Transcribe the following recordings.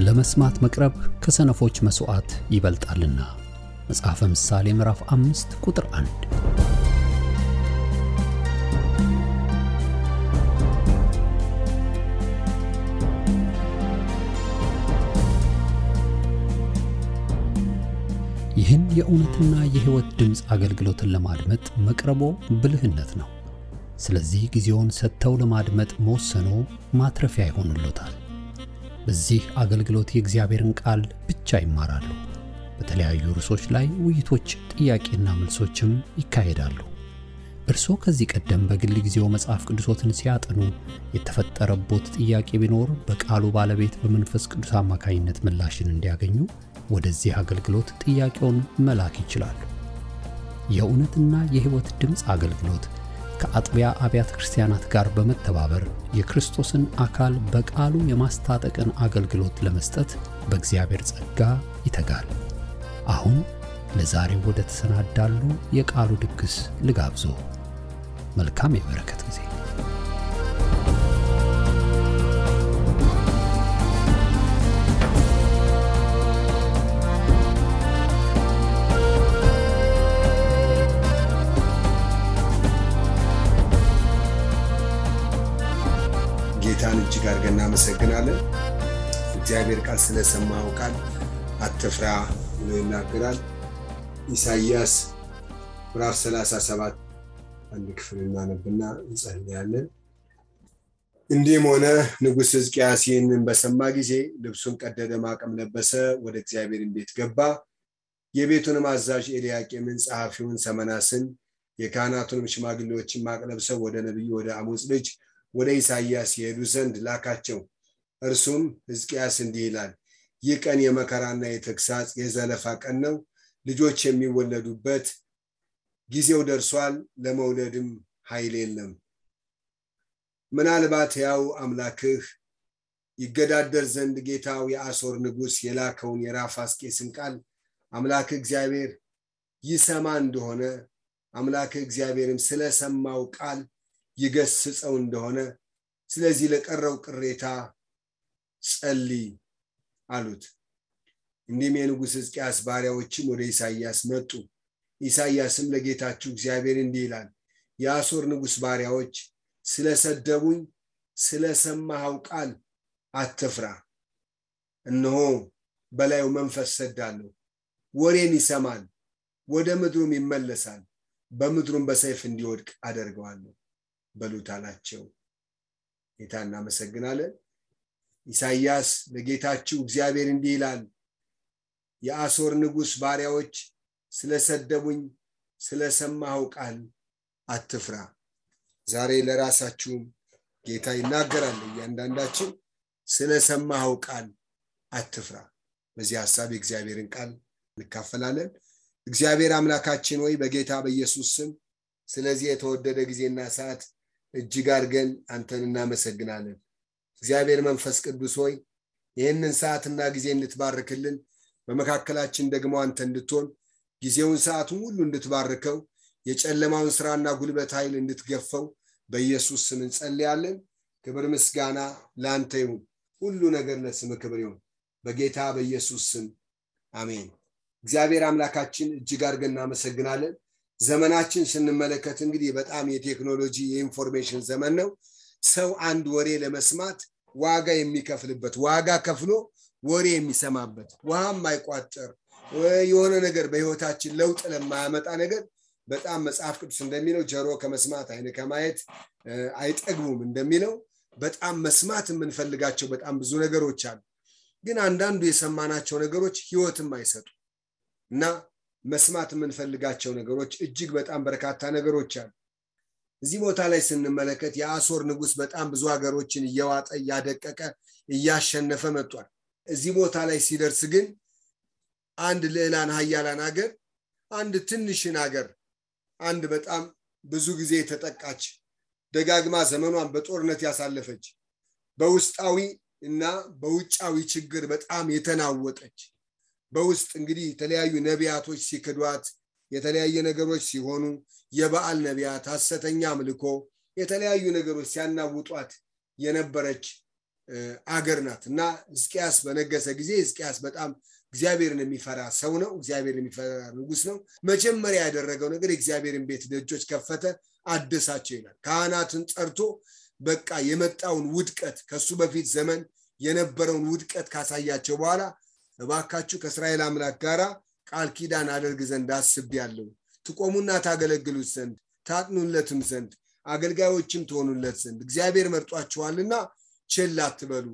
ለመስማት መቅረብ ከሰነፎች መስዋዕት ይበልጣልና። መጽሐፈ ምሳሌ ምዕራፍ 5 ቁጥር 1። ይህን የእውነትና የሕይወት ድምጽ አገልግሎትን ለማድመጥ መቅረቦ ብልህነት ነው። ስለዚህ ጊዜውን ሰጥተው ለማድመጥ መወሰኖ ማትረፊያ ይሆንልዎታል። በዚህ አገልግሎት የእግዚአብሔርን ቃል ብቻ ይማራሉ። በተለያዩ ርዕሶች ላይ ውይይቶች፣ ጥያቄና መልሶችም ይካሄዳሉ። እርስዎ ከዚህ ቀደም በግል ጊዜው መጽሐፍ ቅዱሶትን ሲያጠኑ የተፈጠረቦት ጥያቄ ቢኖር በቃሉ ባለቤት በመንፈስ ቅዱስ አማካኝነት ምላሽን እንዲያገኙ ወደዚህ አገልግሎት ጥያቄውን መላክ ይችላሉ። የእውነትና የሕይወት ድምጽ አገልግሎት ከአጥቢያ አብያተ ክርስቲያናት ጋር በመተባበር የክርስቶስን አካል በቃሉ የማስታጠቅን አገልግሎት ለመስጠት በእግዚአብሔር ጸጋ ይተጋል። አሁን ለዛሬው ወደ ተሰናዳሉ የቃሉ ድግስ ልጋብዞ። መልካም የበረከት ጊዜ። ጌታን እጅግ አድርገን እናመሰግናለን። እግዚአብሔር ቃል ስለሰማው ቃል አትፍራ ብሎ ይናገራል። ኢሳይያስ ምዕራፍ 37 አንድ ክፍል እናነብና እንጸልያለን። እንዲህም ሆነ ንጉሥ ሕዝቅያስ ይህንን በሰማ ጊዜ ልብሱን ቀደደ፣ ማቅም ለበሰ፣ ወደ እግዚአብሔር ቤት ገባ። የቤቱንም አዛዥ ኤልያቄምን፣ ጸሐፊውን ሰመናስን፣ የካህናቱንም ሽማግሌዎችን ማቅ ለብሰው ወደ ነቢዩ ወደ አሞጽ ልጅ ወደ ኢሳይያስ ይሄዱ ዘንድ ላካቸው። እርሱም ሕዝቅያስ እንዲህ ይላል፣ ይህ ቀን የመከራና የተግሳጽ የዘለፋ ቀን ነው። ልጆች የሚወለዱበት ጊዜው ደርሷል፣ ለመውለድም ኃይል የለም። ምናልባት ያው አምላክህ ይገዳደር ዘንድ ጌታው የአሦር ንጉሥ የላከውን የራፋስቄስን ቃል አምላክህ እግዚአብሔር ይሰማ እንደሆነ አምላክህ እግዚአብሔርም ስለሰማው ቃል ይገስጸው እንደሆነ ስለዚህ ለቀረው ቅሬታ ጸልይ አሉት። እንዲህም የንጉሥ ሕዝቅያስ ባሪያዎችም ወደ ኢሳይያስ መጡ። ኢሳይያስም ለጌታችሁ እግዚአብሔር እንዲህ ይላል፣ የአሦር ንጉሥ ባሪያዎች ስለሰደቡኝ ስለሰማኸው ቃል አትፍራ። እነሆ በላዩ መንፈስ ሰዳለሁ፣ ወሬን ይሰማል፣ ወደ ምድሩም ይመለሳል፣ በምድሩም በሰይፍ እንዲወድቅ አደርገዋለሁ በሉት አላቸው። ጌታ እናመሰግናለን። ኢሳይያስ ለጌታችሁ እግዚአብሔር እንዲህ ይላል፣ የአሦር ንጉሥ ባሪያዎች ስለሰደቡኝ ስለሰማኸው ቃል አትፍራ። ዛሬ ለራሳችሁም ጌታ ይናገራል። እያንዳንዳችን ስለሰማኸው ቃል አትፍራ። በዚህ ሐሳብ የእግዚአብሔርን ቃል እንካፈላለን። እግዚአብሔር አምላካችን ሆይ በጌታ በኢየሱስ ስም ስለዚህ የተወደደ ጊዜና ሰዓት እጅግ አድርገን አንተን እናመሰግናለን። እግዚአብሔር መንፈስ ቅዱስ ሆይ ይህንን ሰዓትና ጊዜ እንድትባርክልን፣ በመካከላችን ደግሞ አንተ እንድትሆን ጊዜውን ሰዓቱን ሁሉ እንድትባርከው፣ የጨለማውን ስራና ጉልበት ኃይል እንድትገፈው በኢየሱስ ስም እንጸልያለን። ክብር ምስጋና ለአንተ ይሁን። ሁሉ ነገር ለስም ክብር ይሁን በጌታ በኢየሱስ ስም አሜን። እግዚአብሔር አምላካችን እጅግ አድርገን እናመሰግናለን። ዘመናችን ስንመለከት እንግዲህ በጣም የቴክኖሎጂ የኢንፎርሜሽን ዘመን ነው። ሰው አንድ ወሬ ለመስማት ዋጋ የሚከፍልበት፣ ዋጋ ከፍሎ ወሬ የሚሰማበት፣ ውሃም አይቋጠር የሆነ ነገር በህይወታችን ለውጥ ለማያመጣ ነገር በጣም መጽሐፍ ቅዱስ እንደሚለው ጆሮ ከመስማት ዓይን ከማየት አይጠግቡም እንደሚለው በጣም መስማት የምንፈልጋቸው በጣም ብዙ ነገሮች አሉ። ግን አንዳንዱ የሰማናቸው ነገሮች ህይወትም አይሰጡ እና መስማት የምንፈልጋቸው ነገሮች እጅግ በጣም በርካታ ነገሮች አሉ። እዚህ ቦታ ላይ ስንመለከት የአሦር ንጉሥ በጣም ብዙ ሀገሮችን እየዋጠ እያደቀቀ እያሸነፈ መጥቷል። እዚህ ቦታ ላይ ሲደርስ ግን አንድ ልዕላን ኃያላን ሀገር፣ አንድ ትንሽን ሀገር፣ አንድ በጣም ብዙ ጊዜ የተጠቃች ደጋግማ ዘመኗን በጦርነት ያሳለፈች በውስጣዊ እና በውጫዊ ችግር በጣም የተናወጠች በውስጥ እንግዲህ የተለያዩ ነቢያቶች ሲክዷት የተለያየ ነገሮች ሲሆኑ የበዓል ነቢያት ሐሰተኛ አምልኮ የተለያዩ ነገሮች ሲያናውጧት የነበረች አገር ናትና ሕዝቅያስ በነገሰ ጊዜ ሕዝቅያስ በጣም እግዚአብሔርን የሚፈራ ሰው ነው እግዚአብሔርን የሚፈራ ንጉስ ነው መጀመሪያ ያደረገው ነገር እግዚአብሔርን ቤት ደጆች ከፈተ አደሳቸው ይላል ካህናትን ጠርቶ በቃ የመጣውን ውድቀት ከሱ በፊት ዘመን የነበረውን ውድቀት ካሳያቸው በኋላ እባካችሁ ከእስራኤል አምላክ ጋራ ቃል ኪዳን አደርግ ዘንድ አስቤያለሁ ትቆሙና ታገለግሉት ዘንድ ታጥኑለትም ዘንድ አገልጋዮችም ትሆኑለት ዘንድ እግዚአብሔር መርጧቸዋልና ቸል አትበሉ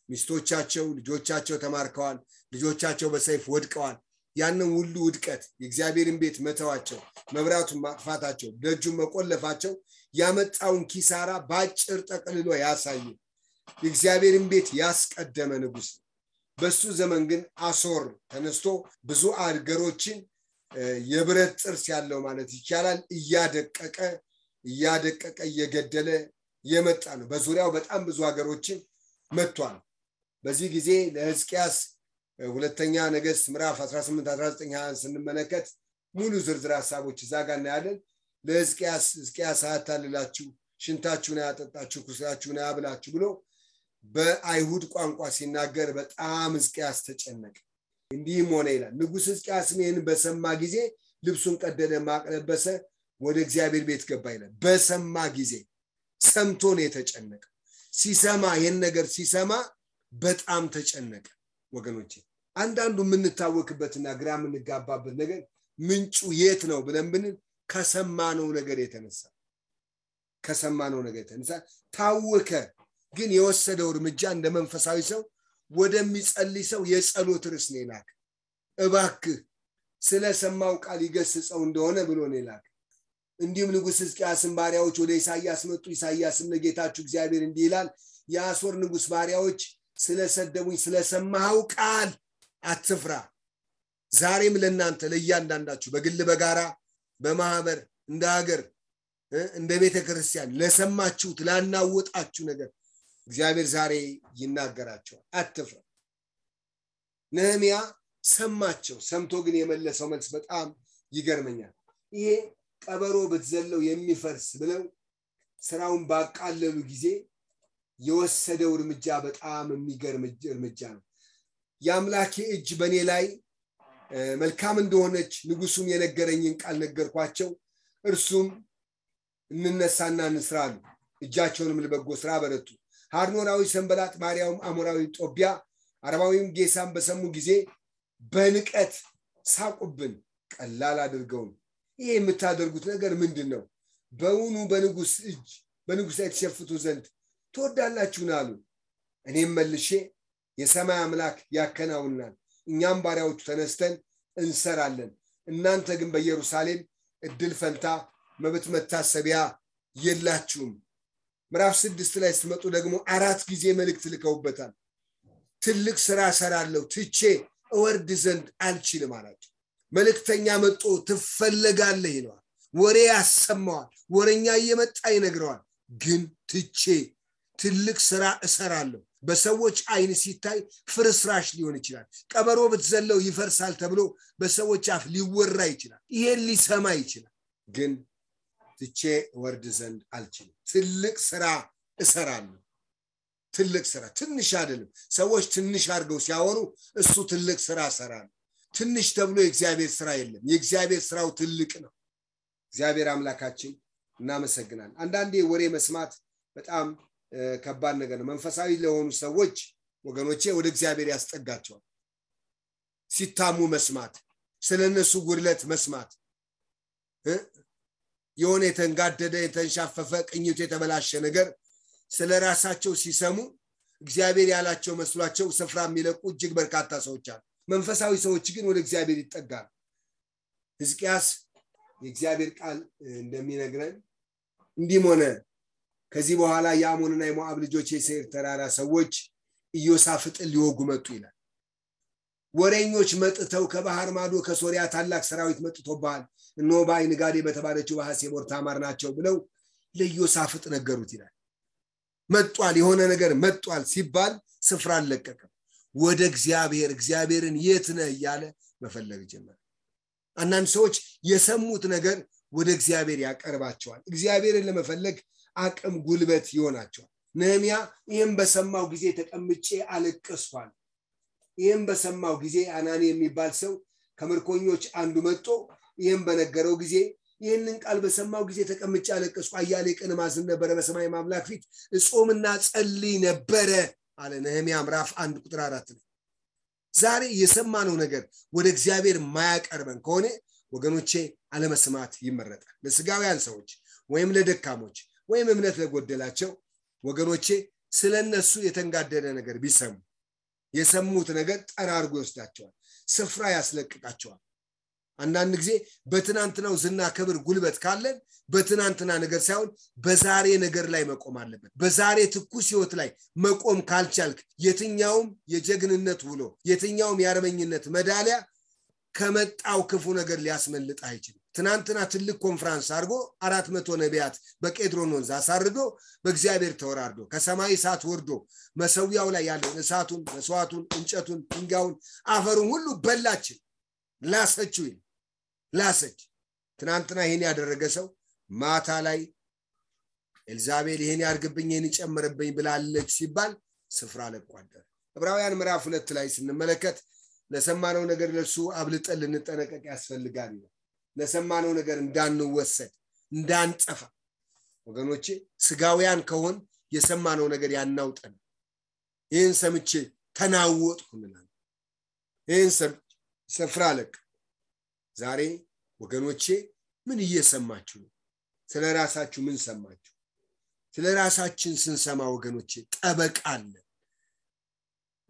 ሚስቶቻቸው ልጆቻቸው ተማርከዋል ልጆቻቸው በሰይፍ ወድቀዋል ያንን ሁሉ ውድቀት የእግዚአብሔርን ቤት መተዋቸው መብራቱን ማጥፋታቸው ደጁን መቆለፋቸው ያመጣውን ኪሳራ ባጭር ጠቅልሎ ያሳየ የእግዚአብሔርን ቤት ያስቀደመ ንጉስ በሱ ዘመን ግን አሶር ተነስቶ ብዙ አገሮችን የብረት ጥርስ ያለው ማለት ይቻላል እያደቀቀ እየገደለ የመጣ ነው በዙሪያው በጣም ብዙ ሀገሮችን መጥቷል በዚህ ጊዜ ለሕዝቅያስ ሁለተኛ ነገሥት ምዕራፍ 18 19 20 ስንመለከት ሙሉ ዝርዝር ሐሳቦች ዛጋ እናያለን ለሕዝቅያስ አታልላችሁ ሽንታችሁን ያጠጣችሁ ኩሳችሁን ያብላችሁ ብሎ በአይሁድ ቋንቋ ሲናገር በጣም ሕዝቅያስ ተጨነቀ እንዲህም ሆነ ይላል ንጉስ ሕዝቅያስ ይህን በሰማ ጊዜ ልብሱን ቀደደ ማቅ ለበሰ ወደ እግዚአብሔር ቤት ገባ ይላል በሰማ ጊዜ ሰምቶ ነው የተጨነቀ ሲሰማ ይሄን ነገር ሲሰማ በጣም ተጨነቀ ወገኖቼ አንዳንዱ ምንታወክበትና ግራ ምንጋባበት ነገር ምንጩ የት ነው ብለን ብንል ከሰማነው ነገር የተነሳ ታወከ ግን የወሰደው እርምጃ እንደ መንፈሳዊ ሰው ወደሚጸልይ ሰው የጸሎት ርዕስ ነው ይላክ እባክህ ስለሰማው ቃል ይገስጸው እንደሆነ ብሎ ነው ይላክ እንዲሁም ንጉስ ሕዝቅያስን ባሪያዎች ወደ ኢሳይያስ መጡ ኢሳይያስም ለጌታችሁ እግዚአብሔር እንዲህ ይላል የአሶር ንጉስ ባሪያዎች ስለሰደቡኝ ስለሰማው ቃል አትፍራ ዛሬም ለእናንተ ለእያንዳንዳችሁ በግል በጋራ በማህበር እንደ ሀገር እንደ ቤተክርስቲያን ለሰማችሁት ላናወጣችሁ ነገር እግዚአብሔር ዛሬ ይናገራቸዋል አትፍራ ነህምያ ሰማቸው ሰምቶ ግን የመለሰው መልስ በጣም ይገርመኛል ይሄ ቀበሮ በተዘለው የሚፈርስ ብለው ስራውን ባቃለሉ ጊዜ የወሰደው እርምጃ በጣም የሚገርም እርምጃ ነው ያምላኬ እጅ በኔ ላይ መልካም እንደሆነች ንጉሱም የነገረኝን ቃል ነገርኳቸው እርሱም እንነሳና እንስራሉ እጃቸውንም ለበጎ ስራ በረቱ ሃርኖራዊ ሰንበላጥ ማርያም አሞራዊ ጦቢያ አረባዊም ጌሳም በሰሙ ጊዜ በንቀት ሳቁብን ቀላል አድርገው ይሄ የምታደርጉት ነገር ምንድነው በውኑ በንጉስ እጅ በንጉስ አይተሸፍቱ ዘንድ ተወዳላችሁና አሉ እኔም መልሼ የሰማይ አምላክ ያከናውናል እኛም ባሪያዎቹ ተነስተን እንሰራለን እናንተ ግን በኢየሩሳሌም እድል ፈንታ መብት መታሰቢያ የላችሁም ምዕራፍ 6 ላይ ስትመጡ ደግሞ 4 ጊዜ መልእክት ልከውበታል ትልቅ ስራ ሰራለው ትቼ እወርድ ዘንድ አልችልም አላቸው መልእክተኛ መጥቶ ትፈለጋለህ ይለዋል ወሬ ያሰማዋል ወሬኛ እየመጣ ይነግረዋል ግን ትቼ ትልቅ ስራ እሰራለሁ በሰዎች አይን ሲታይ ፍርስራሽ ሊሆን ይችላል ቀበሮ በተዘለው ይፈርሳል ተብሎ በሰዎች አፍ ሊወራ ይችላል ይሄን ሊሰማ ይችላል ግን ትቼ ወርድ ዘንድ አልችልም ትልቅ ስራ እሰራለሁ ትልቅ ስራ ትንሽ አይደለም ሰዎች ትንሽ አድርገው ሲያወሩ እሱ ትልቅ ስራ እሰራለሁ ትንሽ ተብሎ የእግዚአብሔር ስራ የለም የእግዚአብሔር ስራው ትልቅ ነው እግዚአብሔር አምላካችን እናመሰግናለን አንዳንዴ ወሬ መስማት በጣም ከባድ ነገር ነው መንፈሳዊ ለሆኑ ሰዎች ወገኖቼ ወደ እግዚአብሔር ያስጠጋቸዋል ሲታሙ መስማት ስለነሱ ጉድለት መስማት የሆነ የተንጋደደ የተንሻፈፈ ቅኝቱ የተበላሸ ነገር ስለራሳቸው ሲሰሙ እግዚአብሔር ያላቸው መስሏቸው ስፍራ የሚለቁ እጅግ በርካታ ሰዎች አሉ መንፈሳዊ ሰዎች ግን ወደ እግዚአብሔር ይጠጋሉ ሕዝቅያስ የእግዚአብሔር ቃል እንደሚነግረን እንዲህ ሆነ ከዚህ በኋላ የአሞንና የሞዓብ ልጆች የሴር ተራራ ሰዎች ኢዮሳፍጥን ሊወጉ መጡ ይላል ወሬኞች መጥተው ከባህር ማዶ ከሶሪያ ታላቅ ሰራዊት መጥቶባል እነሆ በአይን ጋዴ በተባለችው በሐሴቦር ታማር ናቸው ብለው ለኢዮሳፍጥ ነገሩት ይላል መጥቷል የሆነ ነገር መጥቷል ሲባል ስፍራ አለቀቀ ወደ እግዚአብሔርን የት ነህ ያለ መፈለግ ጀመረ አንዳንድ ሰዎች የሰሙት ነገር ወደ እግዚአብሔር ያቀርባቸዋል እግዚአብሔርን ለመፈለግ አቅም ጉልበት ይሆናቸዋል ነህምያ ይሄን በሰማው ጊዜ ተቀምጬ አለቀስኳል። ይሄን በሰማው ጊዜ አናኒ የሚባል ሰው ከምርኮኞች አንዱ መጥቶ ይሄን በነገረው ጊዜ ይሄንን ቃል በሰማው ጊዜ ተቀምጬ አለቀስኩ፣ አያሌ ቀን ማዝን ነበር፣ በሰማይ አምላክ ፊት እጾምና ጸልይ ነበር አለ ነህምያ ምዕራፍ 1 ቁጥር 4 ላይ። ዛሬ የሰማነው ነገር ወደ እግዚአብሔር ማያቀርበን ከሆነ ወገኖቼ አለመስማት ይመረጣል። ለስጋውያን ሰዎች ወይም ለደካሞች ወይም እምነት ለጎደላቸው ወገኖቼ ስለነሱ የተንጋደደ ነገር ቢሰሙ የሰሙት ነገር ጠራርጎ ይወስዳቸዋል፣ ስፍራ ያስለቅቃቸዋል። አንዳንድ ጊዜ በትናንትናው ዝና ክብር ጉልበት ካለን በትናንትና ነገር ሳይሆን በዛሬ ነገር ላይ መቆም አለበት። በዛሬ ትኩስ ህይወት ላይ መቆም ካልቻልክ የትኛውም የጀግንነት ውሎ የትኛውም የአርበኝነት ሜዳሊያ ከመጣው ክፉ ነገር ሊያስመልጥ አይችልም። ትናንትና ትልቅ ኮንፈረንስ አድርጎ 400 ነቢያት በቄድሮን ወንዝ አሳርዶ በእግዚአብሔር ተወራርዶ ከሰማይ እሳት ወርዶ መሰዊያው ላይ ያለው እሳቱን መስዋዕቱን እንጨቱን ድንጋዩን አፈሩን ሁሉ በላችን ላሰችው ላሰች። ትናንትና ይሄን ያደረገ ሰው ማታ ላይ ኤልዛቤል ይሄን ያርግብኝ ይሄን ይጨምርብኝ ብላለች ሲባል ስፍራ ለቋደረ። ዕብራውያን ምዕራፍ 2 ላይ ስንመለከት ለሰማነው ነገር ለሱ አብልጠን ልንጠነቀቅ ያስፈልጋል። ለሰማነው ነገር እንዳንወሰድ እንዳንጠፋ ወገኖቼ ስጋውያን ከሆን የሰማነው ነገር ያናውጠን። ይሄን ሰምቼ ተናወጥኩ ምናምን ይሄን ስፍራ ለቅ። ዛሬ ወገኖቼ ምን እየሰማችሁ ነው? ስለራሳችሁ ምን ሰማችሁ? ስለራሳችን ስንሰማ ወገኖቼ ጠበቃለ።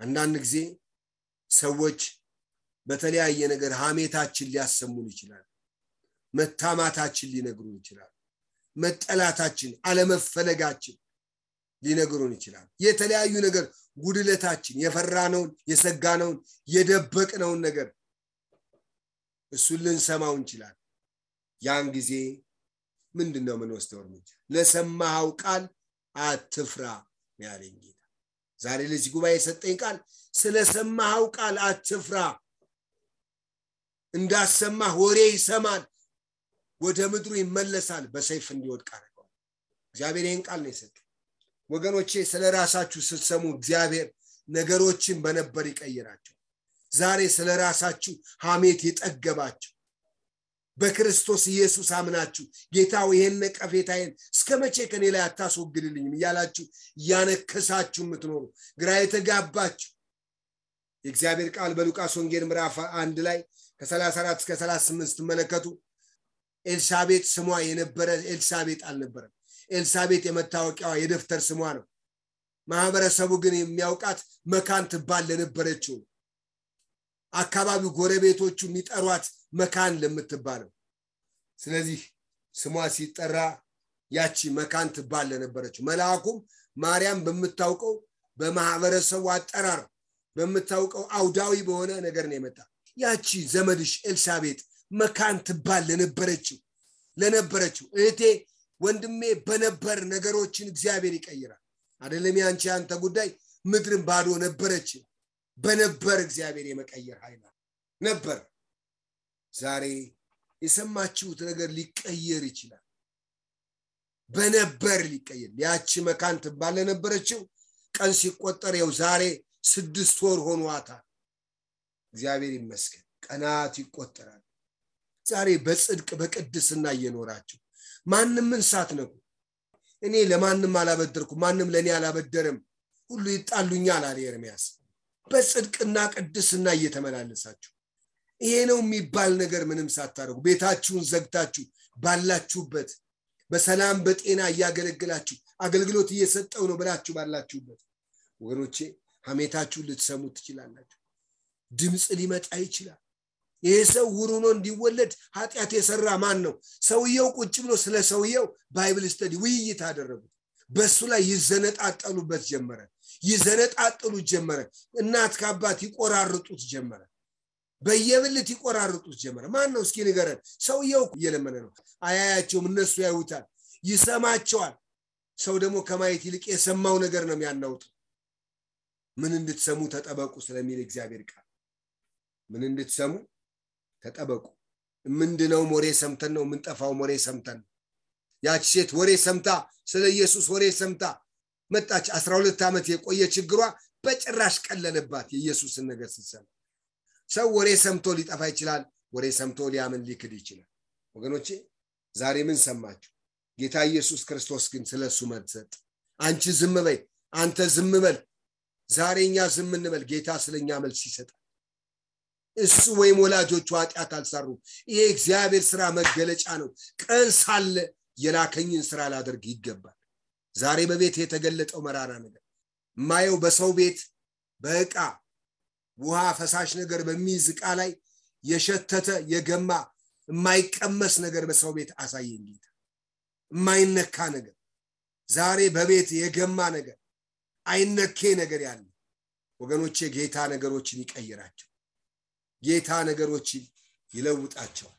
አንዳንድ ጊዜ ሰዎች በተለያየ ነገር ሐሜታችን ሊያሰሙን ይችላል፣ መታማታችን ሊነግሩን ይችላል፣ መጠላታችን አለመፈለጋችን ሊነግሩን ይችላል። የተለያዩ ነገር ጉድለታችን የፈራነውን የሰጋነውን የደበቅነውን ነገር እሱን ልንሰማው እንችላለን። ያን ጊዜ ምንድነው የምንወስደው እርምጃ? ለሰማኸው ቃል አትፍራ ያለኝ ጌታ ዛሬ ለዚህ ጉባኤ የሰጠኝ ቃል ስለሰማኸው ቃል አትፍራ። እንዳሰማህ ወሬ ይሰማል፣ ወደ ምድሩ ይመለሳል፣ በሰይፍ እንዲወድቅ አደረገው። እግዚአብሔር ይህን ቃል ነው የሰጠው። ወገኖቼ ስለራሳችሁ ስትሰሙ እግዚአብሔር ነገሮችን በነበር ይቀይራቸው። ዛሬ ስለራሳችሁ ሐሜት የጠገባችሁ በክርስቶስ ኢየሱስ አምናችሁ ጌታው ይሄን ነቀፌታዬን እስከመቼ ከኔ ላይ አታስወግድልኝም እያላችሁ ያነከሳችሁ የምትኖሩ ግራ የተጋባችሁ የእግዚአብሔር ቃል በሉቃስ ወንጌል ምዕራፍ 1 ላይ ከ34 እስከ 38 ተመለከቱ። ኤልሳቤጥ ስሟ የነበረ ኤልሳቤጥ አልነበረም። ኤልሳቤጥ የመታወቂያዋ የደፍተር ስሟ ነው። ማህበረሰቡ ግን የሚያውቃት መካን ትባል ለነበረችው አካባቢው ጎረቤቶቹ የሚጠሯት መካን ለምትባለው። ስለዚህ ስሟ ሲጠራ ያቺ መካን ትባል ለነበረችው መልአኩም ማርያም በመታውቀው በማህበረሰቡ አጠራር በመታውቀው አውዳዊ በሆነ ነገር ነው የመጣ። ያቺ ዘመድሽ ኤልሳቤጥ መካን ትባል ለነበረችው እህቴ ወንድሜ በነበር ነገሮችን እግዚአብሔር ይቀይራል። አይደለም ያንቺ አንተ ጉዳይ ምድርን ባዶ ነበረች፣ በነበር እግዚአብሔር የመቀየር ኃይል ነበር። ዛሬ የሰማችሁት ነገር ሊቀየር ይችላል። በነበር ሊቀየር። ያቺ መካን ትባል ለነበረችው ቀን ሲቆጠር ያው ዛሬ 6 ወር ሆኗታል። እግዚአብሔር ይመስገን ቀናት ይቆጠራል። ዛሬ በጽድቅ በቅድስና እየኖራችሁ ማንንም ሳትነኩ እኔ ለማንንም አላበደርኩ ማንንም ለኔ አላበደረም ሁሉ ይጣሉኛል አለ ኤርምያስ። በጽድቅና ቅድስና እየተመላለሳችሁ ይሄ ነው የሚባል ነገር ምንም ሳታረጉ ቤታችሁን ዘግታችሁ ባላችሁበት በሰላም በጤና ያገለግላችሁ አገልግሎት እየሰጠው ነው ብላችሁ ባላችሁበት ወገኖቼ ሐሜታችሁ ልትሰሙ ትችላላችሁ። ድምጽ ሊመጣ ይችላል። ይሄ ሰው ውሩኖ እንዲወለድ ኃጢአት የሰራ ማን ነው? ሰውየው ቁጭ ብሎ ስለ ሰውየው ባይብል ስተዲ ውይይት አደረጉ። በሱ ላይ ይዘነጣጠሉበት ጀመረ። ይዘነጣጠሉት ጀመረ። እናት ከአባት ይቆራርጡት ጀመረ። በየብልት ይቆራርጡት ጀመረ። ማን ነው እስኪ ንገረን? ሰውየው እየለመነ ነው። አያያቸውም፣ እነሱ ያዩታል፣ ይሰማቸዋል። ሰው ደግሞ ከማየት ይልቅ የሰማው ነገር ነው የሚያናውጠው። ምን እንድትሰሙ ተጠበቁ ስለሚል እግዚአብሔር ቃል ምን እንድትሰሙ ተጠበቁ። ምንድነው? ወሬ ሰምተን ነው የምንጠፋው። ወሬ ሰምተን ያቺ ሴት ወሬ ሰምታ ስለ ኢየሱስ ወሬ ሰምታ መጣች 12 ዓመት የቆየ ችግሯ በጭራሽ ቀለለባት የኢየሱስን ነገር ስትሰማ ሰው ወሬ ሰምቶ ሊጠፋ ይችላል ወሬ ሰምቶ ሊያምን ሊክድ ይችላል ወገኖቼ ዛሬ ምን ሰማችሁ ጌታ ኢየሱስ ክርስቶስ ግን ስለሱ መሰጥ አንቺ ዝም በይ አንተ ዝም በል ዛሬኛ ዝም እንበል ጌታ ስለኛ መልስ ይሰጣል እሱ ወይም ወላጆቹ ኃጢአት አልሰሩ ይሄ እግዚአብሔር ሥራ መገለጫ ነው ቀን ሳለ የላከኝን ሥራ ላደርግ ይገባል ዛሬ በቤት የተገለጠው መራራ ነገር ማየው በሰው ቤት በእቃ ውሃ ፈሳሽ ነገር በሚዝቃ ላይ የሸተተ የገማ የማይቀመስ ነገር በሰው ቤት አሳየኝ ጌታ የማይነካ ነገር ዛሬ በቤት የገማ ነገር አይነኬ ነገር ያለ ወገኖቼ ጌታ ነገሮችን ይቀይራቸው ጌታ ነገሮችን ይለውጣቸው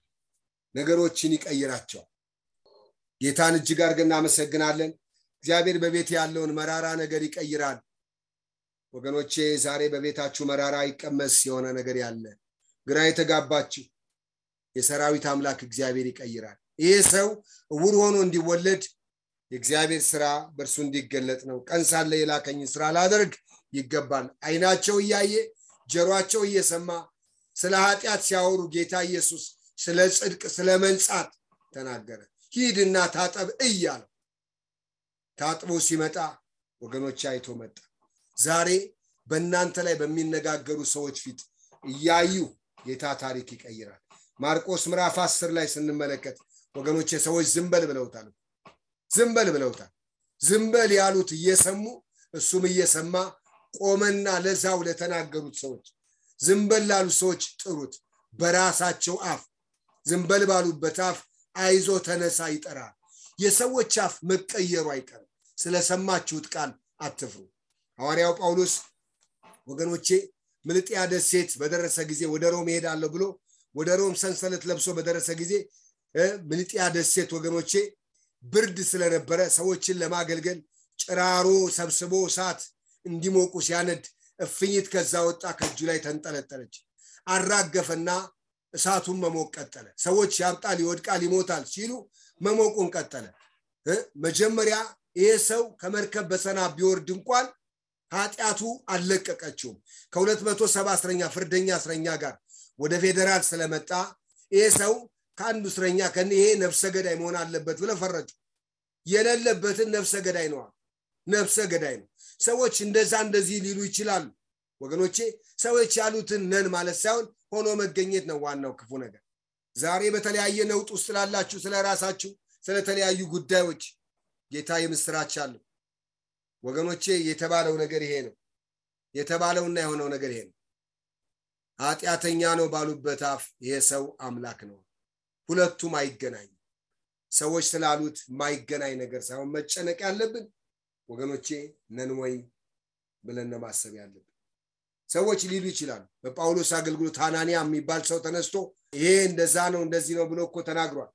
ነገሮችን ይቀይራቸው ጌታን እጅግ አድርገን እናመሰግናለን እግዚአብሔር በቤት ያለውን መራራ ነገር ይቀይራል ወገኖቼ ዛሬ በቤታችሁ መራራ ይቀመስ የሆነ ነገር ያለ ግራ የተጋባችሁ የሰራዊት አምላክ እግዚአብሔር ይቀይራል ይሄ ሰው ዕውር ሆኖ እንዲወለድ የእግዚአብሔር ሥራ በእርሱ እንዲገለጥ ነው ቀን ሳለ የላከኝ ሥራ ላደርግ ይገባል አይናቸው እያየ ጆሮአቸው እየሰማ ስለ ኃጢአት ሲያወሩ ጌታ ኢየሱስ ስለ ጽድቅ ስለ መንጻት ተናገረ ሂድና ታጠብ እያለ ታጥቦ ሲመጣ ወገኖች አይቶ መጣ ዛሬ በእናንተ ላይ በሚነጋገሩ ሰዎች ፊት እያዩ ጌታ ታሪክ ይቀይራል ማርቆስ ምዕራፍ 10 ላይ ስንመለከት ወገኖች ሰዎች ዝምበል ብለውታል ዝምበል ያሉት እየሰሙ እሱም እየሰማ ቆመና ለዛው ለተናገሩት ሰዎች ዝምበል ላሉ ሰዎች ጥሩት በራሳቸው አፍ ዝምበል ባሉበት አፍ አይዞ ተነሳ ይጠራል የሰዎች አፍ መቀየሩ አይቀርም ስለሰማችሁት ቃል አትፍሩ ሐዋርያው ጳውሎስ ወገኖቼ ምልጥያ ደሴት በደረሰ ጊዜ ወደ ሮም ሄዳለሁ ብሎ ወደ ሮም ሰንሰለት ለብሶ በደረሰ ጊዜ ምልጥያ ደሴት ወገኖቼ ብርድ ስለነበረ ሰዎችን ለማገልገል ጭራሮ ሰብስቦ እሳት እንዲሞቁ ሲያነድ እፍኝት ከዛ ወጣ ከእጁ ላይ ተንጠለጠለች አራገፈና እሳቱን መሞቅ ቀጠለ ሰዎች ያብጣል ይወድቃል ይሞታል ሲሉ መሞቁን ቀጠለ መጀመሪያ ይሄ ሰው ከመርከብ በሰና ቢወርድ እንኳን ኃጢአቱ አለቀቀችው ከ270 እስረኛ ፍርደኛ እስረኛ ጋር ወደ ፌደራል ስለመጣ ይሄ ሰው ከአንዱ እስረኛ ከነ ይሄ ነፍሰ ገዳይ መሆን አለበት ብለው ፈረጁ የሌለበትን ነፍሰ ገዳይ ነው ሰዎች እንደዚህ ሊሉ ይችላሉ ወገኖቼ ሰዎች ያሉትን ነን ማለት ሳይሆን ሆኖ መገኘት ነው ዋናው ክፉ ነገር ዛሬ በተለያየ ነውጥ ውስጥ ላላችሁ ስለራሳችሁ ስለተለያዩ ጉዳዮች ጌታ የምስራች አለ ወገኖቼ የተባለው ነገር ይሄ ነው የተባለውና የሆነው ነገር ይሄ ነው ኃጢአተኛ ነው ባሉበት አፍ ይሄ ሰው አምላክ ነው ሁለቱም አይገናኙ ሰዎች ስላሉት ማይገናኝ ነገር ሳይሆን መጨነቅ ያለብን ወገኖቼ ነን ወይ ብለን ማሰብ ያለብን ሰዎች ሊሉ ይችላሉ በጳውሎስ አገልግሎት ሐናንያ የሚባል ሰው ተነስቶ ይሄ እንደዛ ነው እንደዚህ ነው ብሎ እኮ ተናግሯል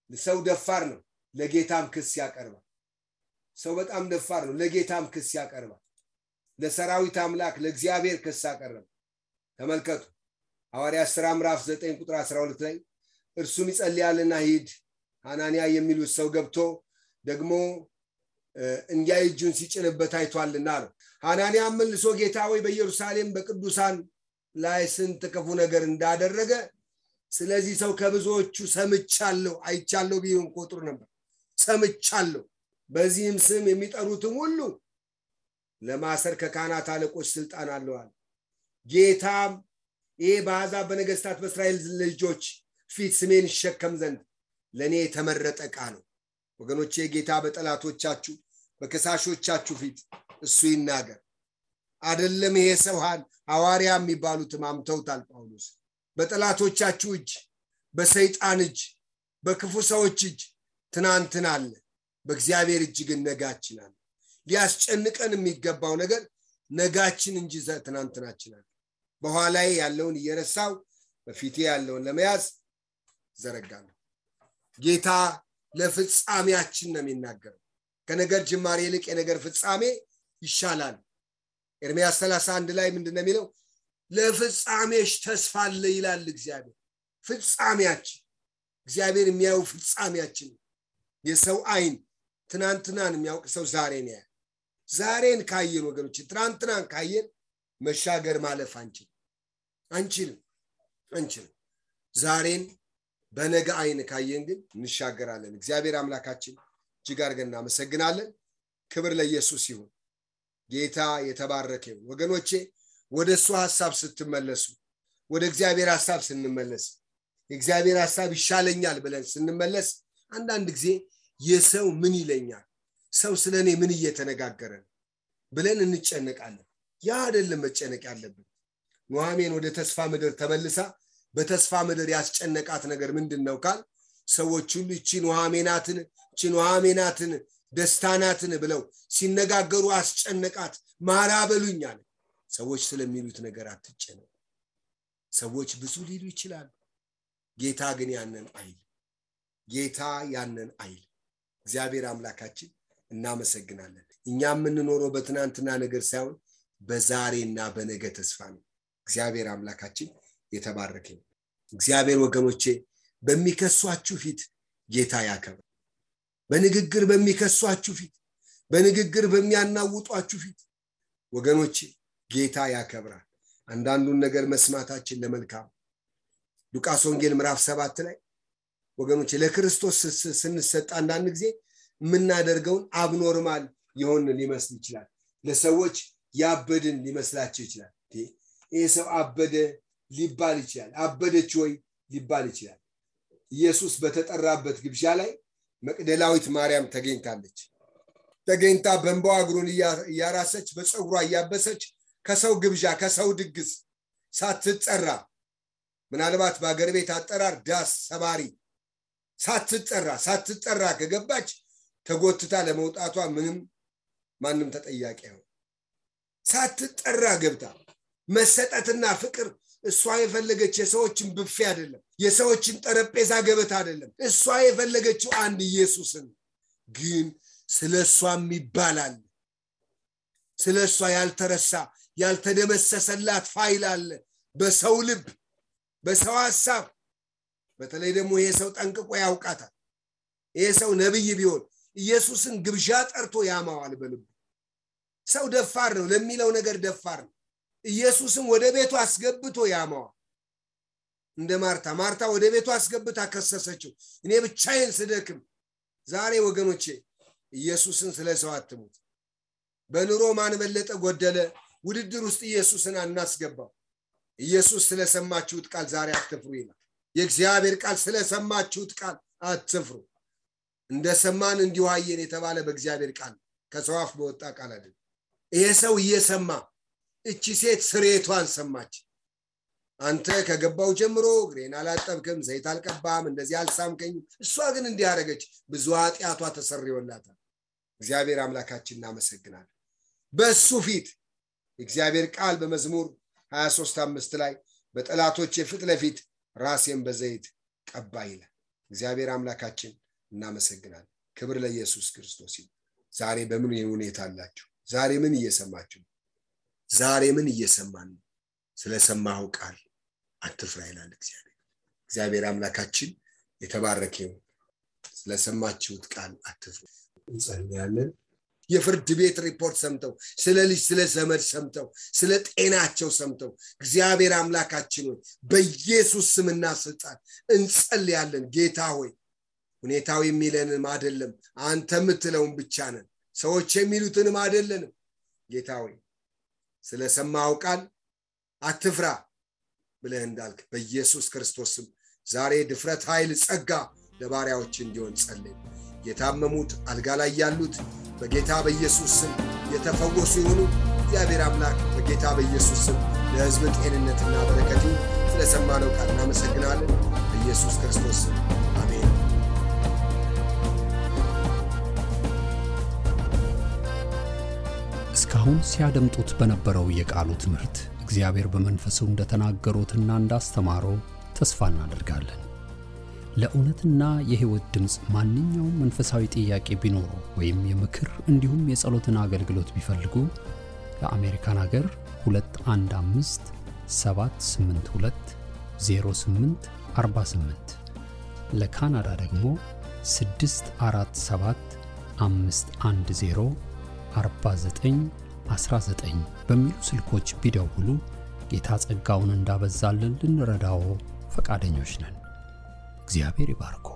ሰው ደፋር ነው ለጌታም ክስ ያቀርባል ሰው በጣም ደፋር ነው ለጌታም ክስ ያቀርባል ለሰራዊት አምላክ ለእግዚአብሔር ክስ ያቀርባል ተመልከቱ ሐዋርያት ሥራ ምዕራፍ 9 ቁጥር 12 ላይ እርሱም ይጸልያልና ሂድ ሐናንያ የሚሉት ሰው ገብቶ ደግሞ እንዲያ እጁን ሲጭንበት አይቷልና ነው ሐናንያ መልሶ ጌታ ሆይ በኢየሩሳሌም በቅዱሳን ላይ ስንት ክፉ ነገር እንዳደረገ ስለዚህ ሰው ከብዙዎቹ ሰምቻለሁ አይቻለሁ ቢሆን ቆጥሩ ነበር ሰምቻለሁ በዚህም ስም የሚጠሩትም ሁሉ ለማሰር ከካህናት አለቆች ስልጣን አለዋል ጌታም ይሄ በአሕዛብ በነገስታት በእስራኤል ልጆች ፊት ስሜን ይሸከም ዘንድ ለኔ የተመረጠ ዕቃ ነው ወገኖቼ ጌታ በጠላቶቻችሁ በከሳሾቻችሁ ፊት እሱ ይናገር አይደለም ይሄ ሰው ሐዋርያ የሚባሉት ማምተውታል ጳውሎስ በጠላቶቻችሁ እጅ በሰይጣን እጅ በክፉ ሰዎች እጅ ትናንትና አለ በእግዚአብሔር እጅ ግን ነጋችን አለ ሊያስጨንቀን የሚገባው ነገር ነጋችን እንጂ ትናንትናችን አለ በኋላዬ ያለውን እየረሳው በፊቴ ያለውን ለመያዝ ዘረጋለሁ ጌታ ለፍጻሜያችን ነው የሚናገረው ከነገር ጅማሬ ይልቅ የነገር ፍጻሜ ይሻላል ኤርምያስ 31 ላይ ምንድነው የሚለው ለፍጻሜሽ ተስፋ አለ ይላል እግዚአብሔር ፍጻሜያችን እግዚአብሔር የሚያው ፍጻሜያችን የሰው አይን ትናንትናን የሚያውቅ ሰው ዛሬ ነው ዛሬን ካየን ወገኖች ትናንትናን ካየን መሻገር ማለፍ አንችልም። ዛሬን በነገ አይን ካየን ግን እንሻገራለን። እግዚአብሔር አምላካችን እጅግ አድርገን እናመሰግናለን። ክብር ለኢየሱስ ይሁን። ጌታ የተባረከ ይሁን። ወገኖቼ ወደሱ ሐሳብ ስትመለሱ፣ ወደ እግዚአብሔር ሐሳብ ስንመለስ፣ የእግዚአብሔር ሐሳብ ይሻለኛል ብለን ስንመለስ አንዳንድ ጊዜ የሰው ምን ይለኛል፣ ሰው ስለኔ ምን እየተነጋገረ ነው ብለን እንጨነቃለን። ያ አይደለም መጨነቅ ያለብን። ኑኃሚን ወደ ተስፋ ምድር ተመልሳ በተስፋ ምድር ያስጨነቃት ነገር ምንድነው ካል ሰዎች ሁሉ እቺ ኑኃሚናትን ደስታናትን ብለው ሲነጋገሩ አስጨነቃት። ማራ በሉኛል። ሰዎች ስለሚሉት ነገር አትጨነቁ። ሰዎች ብዙ ሊሉ ይችላሉ። ጌታ ግን ያንን አይል። እግዚአብሔር አምላካችን እናመሰግናለን። እኛ የምንኖረው በትናንትና ነገር ሳይሆን በዛሬና በነገ ተስፋ ነው። እግዚአብሔር አምላካችን የተባረከ ይሁን። እግዚአብሔር ወገኖቼ በሚከሷችሁ ፊት ጌታ ያከብራል። በንግግር በሚከሷችሁ ፊት፣ በንግግር በሚያናውጧችሁ ፊት ወገኖቼ ጌታ ያከብራል። አንዳንዱን ነገር መስማታችን ለመልካም። ሉቃስ ወንጌል ምዕራፍ 7 ላይ ወገኖቼ ለክርስቶስ ስንሰጥ አንዳንድ ጊዜ የምናደርገውን አብኖርማል የሆነ ሊመስል ይችላል። ለሰዎች ያበድን ሊመስላቸው ይችላል። ይሄ ሰው አበደ ሊባል ይችላል። አበደች ወይ ሊባል ይችላል። ኢየሱስ በተጠራበት ግብዣ ላይ መቅደላዊት ማርያም ተገኝታለች። ተገኝታ በእንባዋ እግሩን እያራሰች በፀጉሯ እያበሰች ከሰው ግብዣ ከሰው ድግስ ሳትጠራ፣ ምናልባት በአገር ቤት አጠራር ዳስ ሰባሪ ሳትጠራ ከገባች ተጎትታ ለመውጣቷ ማንም ተጠያቂ ነው። ሳትጠራ ገብታ መሰጠትና ፍቅር እሷ የፈለገች የሰዎችን ብፌ አይደለም፣ የሰዎችን ጠረጴዛ ገበታ አይደለም። እሷ የፈለገችው አንድ ኢየሱስን። ግን ስለሷም ይባላል። ስለሷ ያልተረሳ ያልተደመሰሰላት ፋይል አለ በሰው ልብ፣ በሰው ሐሳብ። በተለይ ደግሞ ይሄ ሰው ጠንቅቆ ያውቃታል። ይሄ ሰው ነብይ ቢሆን ኢየሱስን ግብዣ ጠርቶ ያማዋል በልቡ። ሰው ደፋር ነው፣ ለሚለው ነገር ደፋር ነው። ኢየሱስን ወደ ቤቱ አስገብቶ ያማዋል። እንደ ማርታ ወደ ቤቱ አስገብታ ከሰሰችው፣ እኔ ብቻዬን ስደክም። ዛሬ ወገኖቼ ኢየሱስን ስለሰው አትሙት። በኑሮ ማን በለጠ ጎደለ ውድድር ውስጥ ኢየሱስን አናስገባው። ኢየሱስ ስለሰማችሁት ቃል ዛሬ አትፍሩ ይላል። የእግዚአብሔር ቃል ስለሰማችሁት ቃል አትፍሩ። እንደሰማን እንዲሁ አየን የተባለ በእግዚአብሔር ቃል ከሰው አፍ በወጣ ቃል አይደለም። ይሄ ሰው እየሰማ እቺ ሴት ስሬቷን ሰማች። አንተ ከገባው ጀምሮ ግሬን አላጠብክም፣ ዘይት አልቀባም፣ እንደዚህ አልሳምከኝም። እሷ ግን እንዲያረገች ብዙ ኃጢያቷ ተሰርዮላታል። እግዚአብሔር አምላካችን እናመሰግናለን። በሱ ፊት እግዚአብሔር ቃል በመዝሙር 23:5 ላይ በጠላቶቼ ፊት ለፊት ራሴን በዘይት ቀባ ይላል። እግዚአብሔር አምላካችን እናመሰግናለን። ክብር ለኢየሱስ ክርስቶስ ይሁን። ዛሬ በምን ሁኔታ አላችሁ? ዛሬ ምን እየሰማችሁ? ዛሬ ምን እየሰማን ነው? ስለሰማው ቃል አትፍራ ይላል እግዚአብሔር አምላካችን የተባረከ ይሁን። ስለሰማችሁት ቃል አትፍሩ። እንጸልያለን። የፍርድ ቤት ሪፖርት ሰምተው ስለ ልጅ ስለ ዘመድ ሰምተው ስለ ጤናቸው ሰምተው እግዚአብሔር አምላካችን ሆይ በኢየሱስ ስምና ስልጣን እንጸልያለን። ጌታ ሆይ ሁኔታው የሚለንም አይደለም፣ አንተ የምትለውን ብቻ ነን። ሰዎች የሚሉትንም አይደለንም። ጌታ ሆይ ስለሰማው ቃል አትፍራ ብለህ እንዳልክ በኢየሱስ ክርስቶስ ስም ዛሬ ድፍረት፣ ኃይል፣ ጸጋ ለባሪያዎች እንዲሆን ጸልይ። የታመሙት አልጋ ላይ ያሉት በጌታ በኢየሱስ ስም የተፈወሱ ይሁኑ። እግዚአብሔር አምላክ በጌታ በኢየሱስ ስም ለሕዝብ ጤንነትና በረከት ስለሰማነው ቃል እናመሰግናለን። በኢየሱስ ክርስቶስ ስም አሜን። እስካሁን ሲያደምጡት በነበረው የቃሉ ትምህርት እግዚአብሔር በመንፈሱ እንደተናገሩትና እንዳስተማረው ተስፋ እናደርጋለን። ለእውነትና የሕይወት ድምጽ ማንኛውም መንፈሳዊ ጥያቄ ቢኖሩ ወይም የምክር እንዲሁም የጸሎትን አገልግሎት ቢፈልጉ ለአሜሪካን ሀገር 215-782-0848 ለካናዳ ደግሞ 647-510 4919 በሚሉ ስልኮች ቢደውሉ ጌታ ጸጋውን እንዳበዛልን ልንረዳው ፈቃደኞች ነን። እግዚአብሔር ይባርኮ።